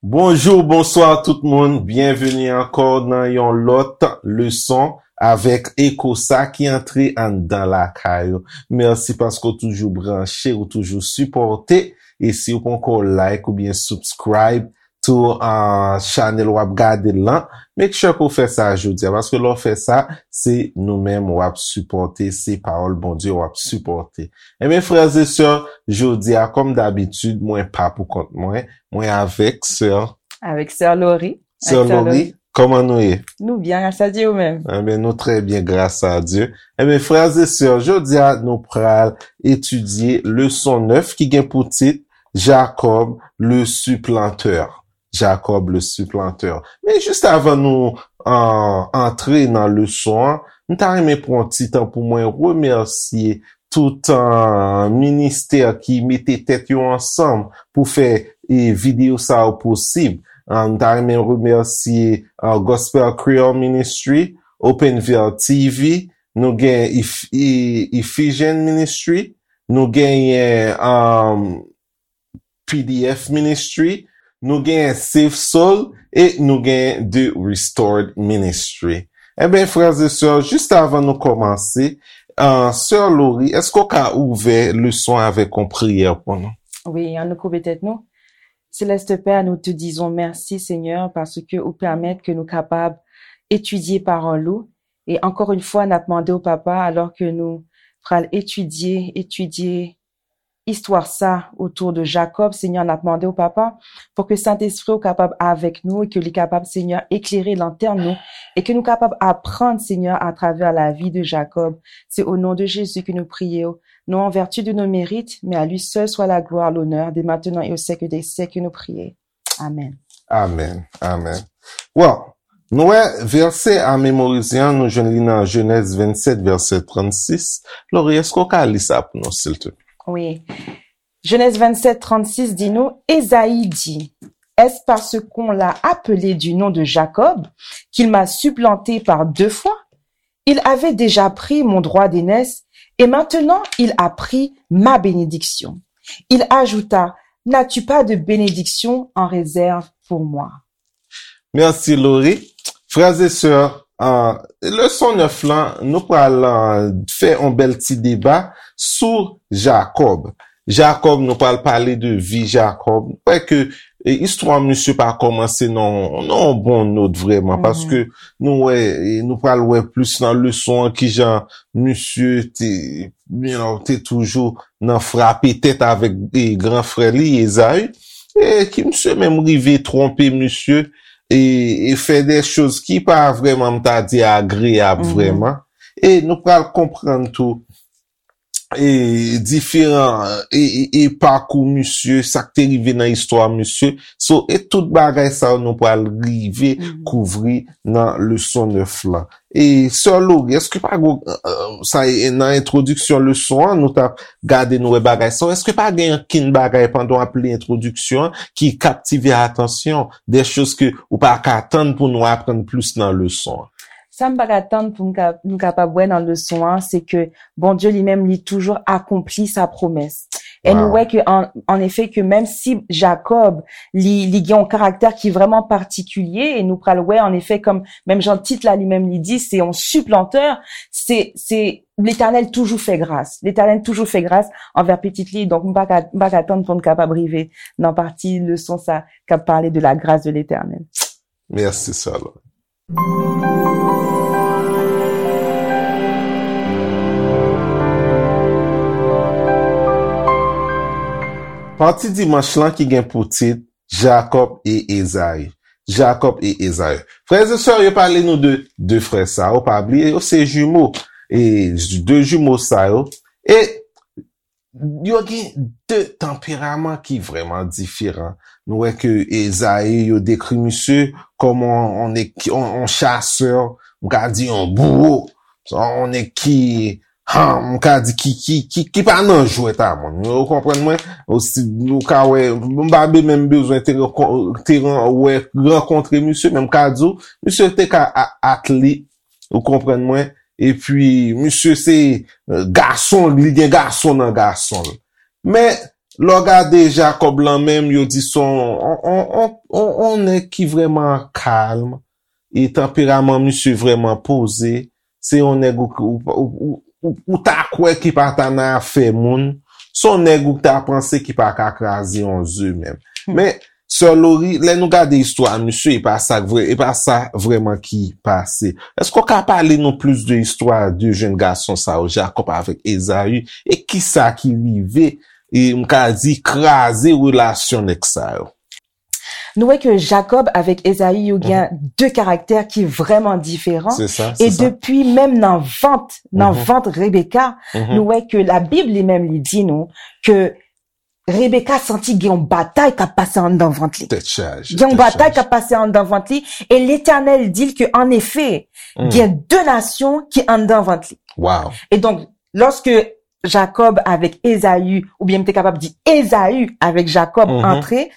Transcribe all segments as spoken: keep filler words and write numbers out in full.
Bonjou, bonswa tout moun. Byenveni ankò nan yon lòt leson avèk Eko sa ki antre anndan lakay ou. Mèsi paske w toujou branche, ou toujou sipòte. E si w poko like oubyen subscribe tou, uh, chanèl w ap gade l lan, make sure ke w fè sa jodi a, paske lè w fè sa, se nou menm w ap sipòte, se pawòl Bondye w ap sipòte. Ebyen, frè e sè, jodi a, kòm dabitid, mwen pa pou kont mwen, mwen avèk sè. Avèk sè Lori. Sè Lori, kòman nou ye? Nou byen, gras a Dye, ou menm? Ebyen, nou trè byen, gras a Dye. Ebyen, frè e sè, jodi a, nou pral etidye leson nèf ki gen pou tit Jacob le supplanteur. Jacob le supplanteur. Men jis avan nou, uh, antre nan leson an, m ta renmen pran ti tan pou mwen remèsye tout, uh, ministè ki mete tèt yo ansanm pou fè, e, videyo sa yo posib. Uh, m ta renmen remèsye, uh, Gospel Creole Ministry, Open Veil T V, nou gen Eph-, E-, Ephesian Ministry, nou genyen, um, P D F Ministry, nou genyen Save Soul e nou genyen The Restored Ministry. Ebyen, frè e sè, jis avan nou kòmanse, uh, sè Lori, èske w ka ouvè leson avèk yon priyè pou nou? Wi, ann nou koube tèt nou. Céleste Père, nous te disons merci, Seigneur, parce que ou pèmèt ke nou kapab etidye pawòl ou. E ankò yon fwa, n ap mande w, Papa, alò ke nou pral etidye, etidye istwa sa otou de Jacob, Senyè, n ap mande w, Papa, pou ke Sentespri w kapab avèk nou e ke li kapab, Senyè, eklere lantèn nou e ke nou kapab aprann, Senyè, atravè lavi de Jacob. Se o non de Jezi ke nou priye w, non an vèti de nos mérites, mais à lui seul soit la gloire, l'honneur, dès maintenant et au siècle des siècles, nou priye. Amèn. Amèn. Amèn. Well, nou wè vèsè a memorize an, nou jwenn li nan Jenèz vennsèt, vèsè trannsis. Lori, èske w ka li sa pou nou, silteplè? Wi. Genèse vingt-sept trente-six dit nous, Ésaü dit, Est-ce parce qu'on l'a appelé du nom de Jacob qu'il m'a supplanté par deux fois? Il avait déjà pris mon droit d'aînesse et maintenant il a pris ma bénédiction. Il ajouta, N'as-tu pas de bénédiction en réserve pour moi? Mèsi, Lori. Frè e sè, uh, leson nèf lan, nou pral, uh, fè yon bèl ti deba sou Jacob. Jacob, nou pral pale de vi Jacob. Nou wè ke, e, istwa misye pa kòmanse nan, nan yon bon not vrèman, paske nou wè, e, nou pral wè plis nan leson an kijan misye te, you know, te toujou nan frape tèt avèk, e, gran frè li, Ésaü, e ki misye menm rive twonpe misye, e, e fè de choz ki pa vrèman, m ta di, agreyab vrèman. E nou pral konprann tou, e, diferan, e, e, e pakou misye, sa k te rive nan istwa misye. So, e tout bagay sa yo nou pral rive kouvri nan leson nèf lan. E sè Lori, èske pa gen, e, sa e, nan entwodiksyon leson an, nou t ap gade, nou wè bagay sa yo, èske pa gen ankenn bagay pandan w ap li entwodiksyon an ki kaptive atansyon, de choz ke ou pa ka tann pou nou aprann plis nan leson an? Sa m pa ka tann pou m ka, nou kapab wè nan leson an, se ke Bondye li menm, li toujou akonpli sa pwomès. E nou wè ke, an, an efè, ke menm si Jacob, li, li gen yon karaktè ki vrèman patikilye, e nou pral wè, an efè, kòm menm jan tit la li menm li di, se yon siplantè, se, se Letènèl toujou fè gras. Letènèl toujou fè gras anvè pitit li. Donk, m pa ka, m pa ka tann pou n kapab rive nan pati leson sa k ap pale de la grâce de l'Éternel. Mèsi, sè Lori. Pati dimanch lan ki gen pou tit Jacob et Ésaü. Jacob et Ésaü. Frè e sè, yo pale nou de de frè sa yo, pa bliye, yo se jimo. E de jimo sa yo. E yo gen de tanperaman ki vrèman diferan. Nou wè ke Ésaü, yo dekri misye kòm on, on, on, on chasè, m ka di on bouwo, on nèg ki, ha, m ka di ki, ki, ki, ki pa nan jwèt a moun. Ou konprann mwen? Osi, ou ka wè, m pa be-, menm bezwen te rankon-, te ran-, wè, rankontre misye, men m ka di w, misye te ka a-, atlet, ou konprann mwen? Epi, misye se, e, gason, li gen gason nan gason l. Men, Lè w gade Jakòb lan menm, yo di se yon, yon, yon, yon, yon, yon nèg ki vrèman kalm, e tanperaman misye vrèman poze. Se yon nèg ou, ou, ou, ou, ou, ou ta kwè ki pa ta nan afè moun. Se yon nèg ou ta panse ki pa ka kraze yon ze menm. Men, Sè Lori, lè nou gade istwa misye, e pa sa k vre, e pa sa vrèman ki pase. Èske w ka pale nou plis de istwa de jèn gason sa yo, Jakòb avèk Ezayi, e kisa ki rive, e m ka di kraze relasyon nèg sa yo? Nou wè ke Jakòb avèk Ezayi yo gen de karaktè ki vrèman diferan. Se sa, E se sa. Depi menm nan vant, nan vant Rebeka, nou wè ke Labib li menm li di nou ke Rebeka santi gen yon batay k ap pase anndan vant li. Tèt chaje. Gen yon batay k ap pase anndan vant li, e Letènèl di l ke, an efè, gen de nasyon ki anndan vant li. Wow. E donk, lòske Jakòb avèk Ezayi, oubyen m te kapab di Ezayi avèk Jakòb antre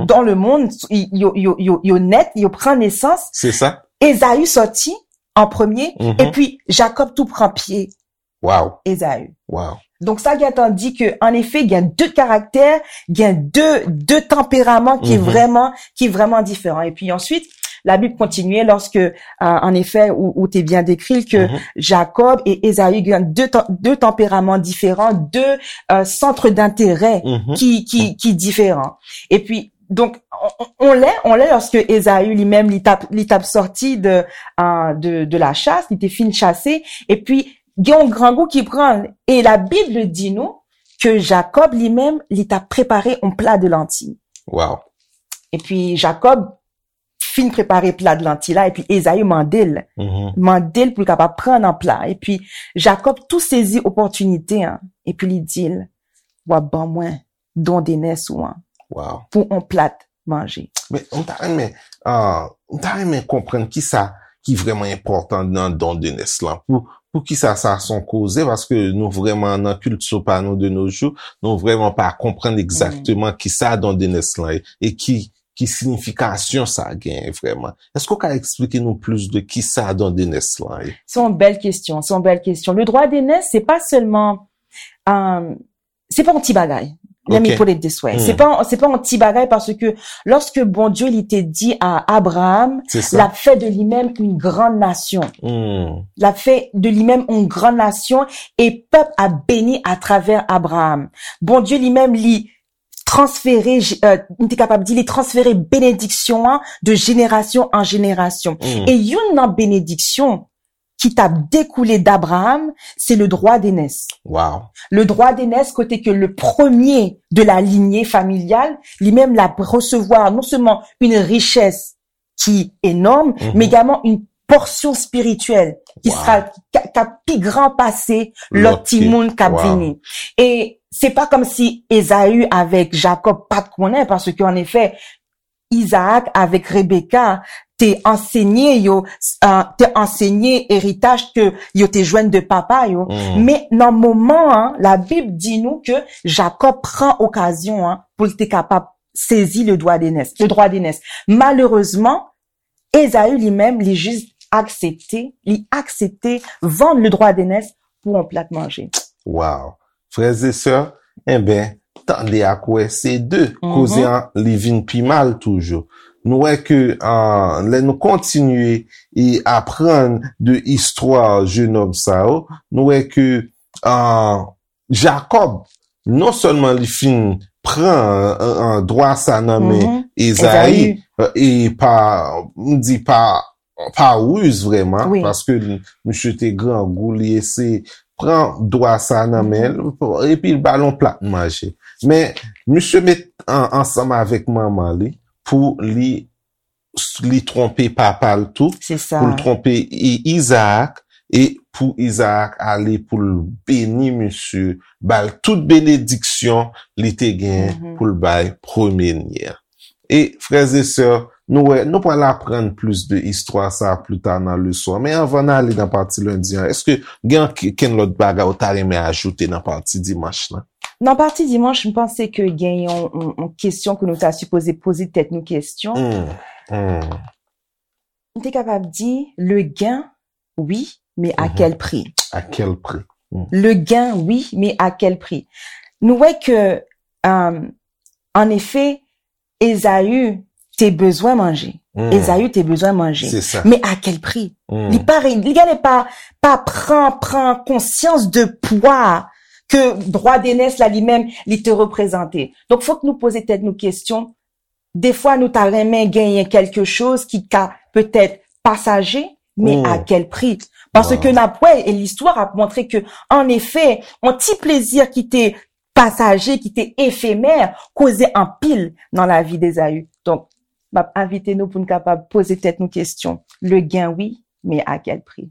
dans le monde, yo, yo, yo, yo nèt, yo pran nesans, Se sa. Ezayi sòti an premye, Mhm. epi Jakòb tou pran pye Wow. Ezayi. Wow. Donk sa gentan di ke, an efè, gen de karaktè, gen de, de tanperaman ki Mhm. vrèman, ki vrèman diferan. Epi answit, Labib kontinye lòske, euh, an efè, ou, ou te byen dekri l ke Mhm. Jakòb e Ezayi gen de, tan- de tanperaman diferan, de euh, sant dentèrè Mhm. ki, ki, ki diferan. Epi, donk, on, on, on lè, on lè, lòske Ezayi li menm, li t ap, li t ap sòti de, euh, de, de la chasse, li te fin chase, epi gen yon grangou ki pran l. E Labib di nou ke Jakòb li menm, li t ap prepare yon pla de lanti. Wow. Epi Jakòb fin prepare pla de lanti la, epi Ezayi mande l, Mhm. mande l pou l kapab pran nan pla. Epi Jakòb tou sezi opòtinite an, epi li di l, w ap ban mwen don de nès ou an Wow. pou yon plat manje. Men, m ta renmen, ah, m ta renmen konprann kisa ki vrèman enpòtan nan don de nès lan. Pou, pou kisa sa se yon koze, paske nou vrèman nan kilti pa nou de nos jours, nou vrèman pa konprann egzakteman kisa don de nès lan ye, e ki, ki siyifikasyon sa genyen vrèman. Èske w ka eksplike nou plis de kisa don de nès lan ye? Se yon bèl kesyon, se yon bèl kesyon. Le droit d'aînesse, se pa sèlman, euh, se pa yon ti bagay. Let me Ok. put it this way. Hmm. Se pa, se pa yon ti bagay paske lòske Bondye li te di a Abraham, Se sa. L ap fè de li menm yon gran nasyon. Hmm. L ap fè de li menm yon gran nasyon e pèp ap beni atravè Abraham. Bondye li menm li transfere, euh, m te kapab di li transfere benediksyon an de jenerasyon an jenerasyon. Hmm. E youn nan benediksyon ki t ap dekoule d'Abraham, se le droit d'aînesse. Wow. Le droit d'aînesse, kote ke le premier de la lignée familiale, li menm l ap resevwa non sèlman une richesse ki enòm, Mhm. men egalman une portion spirituelle ki Wow. sera, ki, ki ap pi gran pase lòt Lòt ki- timoun k ap Wow. vini. E se pa kòmsi Ezayi avèk Jakòb pa t konnen, paske an efè, Izaak avèk Rebeka te ansenye yo, euh, te ansenye eritaj ke yo te jwenn de papa yo. Mm. Men nan moman an, Labib di nou ke Jakòb pran okazyon an pou l te kapab sezi le droit d'aînesse, le droit d'aînesse. Malerezman, Ezayi li menm, li jis aksepte, li aksepte vann le droit d'aînesse pou yon plat manje. Wow. Frè e sè, enben, tande ak wè, se de. Mhm. Koze an, li vin pi mal toujou. Nou wè ke, ah, lè nou kontinye e aprann de istwa jennonm sa yo, nou wè ke, ah, Jakòb, non sèlman li fin pran, ah, ah, dwa sa nan men Mhm. Ezayi, Ezayi. e pa, m di pa, pa riz vrèman, Wi. paske li, misye te grangou, li eseye pran dwa sa nan men l, epi l ba l yon plat manje. Men, misye met an, ansanm avèk manman li pou li, li twonpe papa l tou, Se sa. Pou l twonpe I- Izaak, e pou Izaak ale pou l beni misye, ba l tout benediksyon li te gen Mhm. pou l bay premye nye a. E frè e sè, nou wè, nou pral aprann plis de istwa sa pli ta nan leson an. Men anvan n ale nan pati lendi an, èske gen ankenn lòt bagay ou ta renmen ajoute nan pati dimanch lan? Nan pati dimanch, m panse ke gen yon, yon, yon kesyon ke nou ta sipoze poze tèt nou kesyon. Hmm, hmm. M te kapab di, le gain, oui, mais à Mhm. quel prix? À quel prix? Le gain, oui, mais à quel prix? Nou wè ke Euh, en effet, Ezaü te bezwen manje. Hmm. Ezaü te bezwen manje. C'est ça. Mais à quel prix? Hmm. Li pa, li gade pa, pa pran, pran konsyans de pwa ke drwa de nès la li menm li te reprezante. Donk, fok nou poze tèt nou kesyon. Defwa, nou ta renmen genyen kèlke choz ki ka petèt pasaje, men Hmm. a kèl pri? Paske Wow. n ap wè, e listwa ap montre ke, an efè, yon ti plezi ki te pasaje, ki te efemè, koze anpil nan lavi Ezaü. Donk, m ap envite nou pou n kapab poze tèt nou kesyon. Le gain, wi, men a kèl pri?